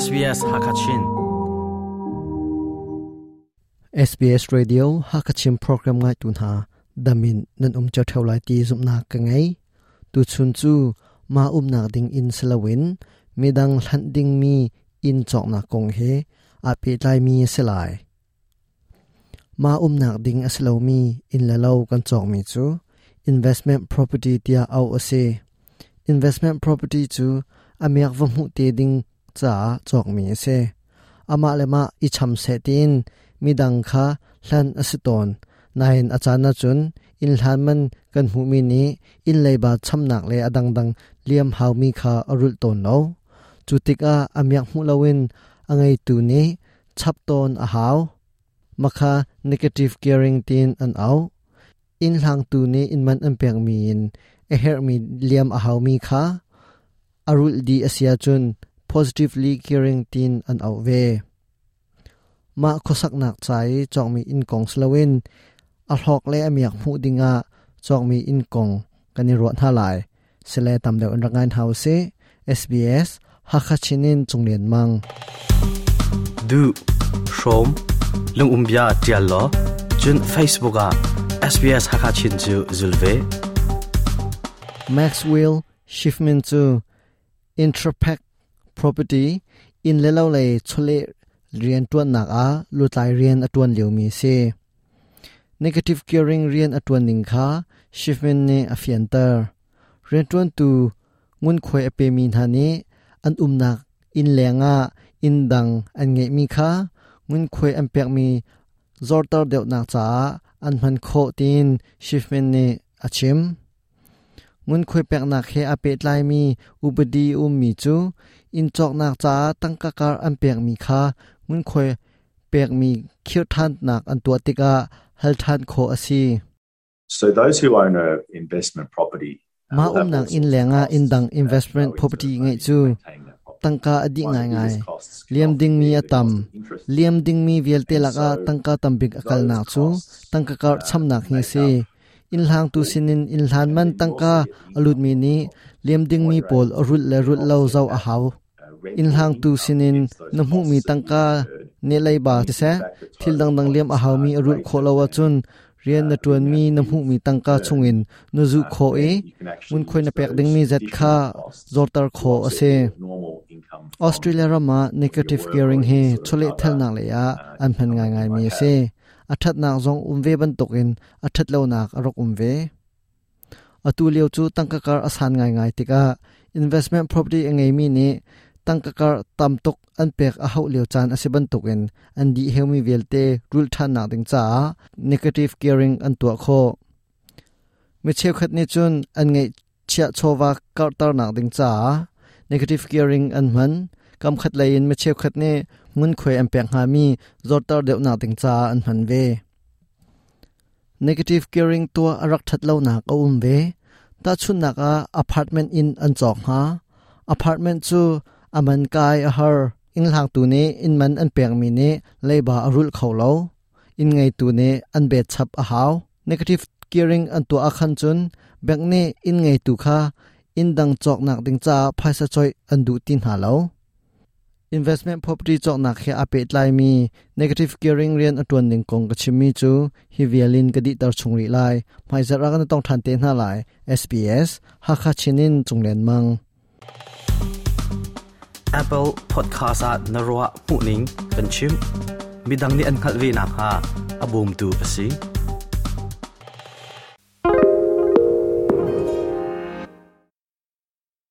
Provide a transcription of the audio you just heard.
SBS Hakachin. SBS Radio Hakachin program ngai tu hna damin nan um cho theu lai ti zumna ka ngei. Tu chun chu ma umnak ding in selawin midang hlan ding mi in chok na kong he a pe tlai mi se lai. Ma umnak ding a si lomi inn le lo kan cawkmi cu investment property tiah auh a si. Investment property cu a miak va hmuh te ding caah cawkmi a si. Amah le mah i cham seh tiin midang kha hlan a si tawn. Nain a caan ahcun inn hlan man kan hmuhmi nih inn leiba chamnak le a dangdang liam haumi kha a rulh tawn lo. Cu tikah a miak hmuh loin a ngeitu nih chap tawn a hau. Makha negative gearing tiin an auh. Inn hlangtu nih inn man an pekmi in a herhmi liam a haumi kha a rulh dih a si ahcun positively gearing tiin an auh ve. Mah khuasaknak ca i cawkmi inn kong si loin a hlawk le a miak hmuh dingah cawkmi inn kong kan i ruah hna lai. Sile tam deuh in rak ngai hna usih. SBS Hakha Chin in Cunglian Mang. Duh, hrawm, lungum bia tial law, cun Facebook ah SBS Hakha Chin cu zul ve. Maxwell Schiffman cu Intrapac Property inn le lo lei chawleh rian ṭuannak ah lutlai rian a ṭuan liomi a si. Negative gearing rian a ṭuan ning kha Schiffman nih a fianter. Rianṭuantu ngunkhuai a pemi hna nih an umnak inn lengah inn dang an ngeihmi kha ngunkhuai an pekmi zorter deuhnak caah an hman khawh tiin Schiffman nih a chim. Ngunkhuai peknak he aa pehtlaimi upadi a ummi cu inn cawknak caah tangka kar an pekmi kha ngunkhuai pekmi khirh ṭhannak an tuah tikah hal ṭhan khawh a si. So those who own a investment property Mah umnak inn lengah inn dang investment property ngeih cu tangka a dih ngaingai. Liam dingmi a tam. Liam dingmi vialte lakah tangka tambik a kalnak cu tangka karh chamnak hi a si. Inn hlangtu sinin inn hlan man tangka a lutmi nih liam dingmi pawl a rulh le rulh lo zoh a hau. Inn hlangtu sinin na hmuhmi tangka nih leiba siseh, thil dangdang liam a haumi a rulh khawh lo ahcun rian na ṭuanmi na hmuhmi tangka chungin na zuh khawh i ngunkhuai na pek dingmi zat kha zorter khawh a si. Australia ram ah negative gearing hi chawlehthalnak lei ah an hman ngaingaimi a si. A ṭhatnak zong um ve bantukin a ṭhatlonak a rak um ve. Atu lio cu tangka kar a san ngaingai tikah investment property a ngeimi nih tangka kar tam tuk an pek a hauh lio caan a si bantukin an dih heumi vialte rulh ṭhannak ding caah negative gearing an tuah khawh. Mi cheukhat nih cun an ngeih chiah chawva karhternak ding caah negative gearing an hman. Kamkhat lei in mi cheukhat nih ngunkhuai an pek hngami zorter deuhnak ding caah an hman ve. Negative gearing tuah a rak ṭhat lonak a um ve. Tahchunhnak ah apartment inn an cawk hna. Apartment cu a man kai a har. Innhlangtu nih inn man an pekmi nih leiba a rulh kho lo. Inn ngeitu nih an bet chap a hau. Negative gearing an tuah ahkhan cun bank nih inn ngeitu kha inn dang cawknak ding caah phaisa coih an duh ti hna lo. Investment property cawknak he aa pehtlaimi negative gearing rian a ṭuan ning kong ka chimmi cu hi vial in ka dihter chung rih lai. Hmaizarh ah kan i tong ṭhan te hna lai. SBS Hakha Chin in Cunglen Mang. Apple Podcast ah na ruah hmuhning kan chim. Midang nih an hngalh ve nakhnga a bawmtu a si.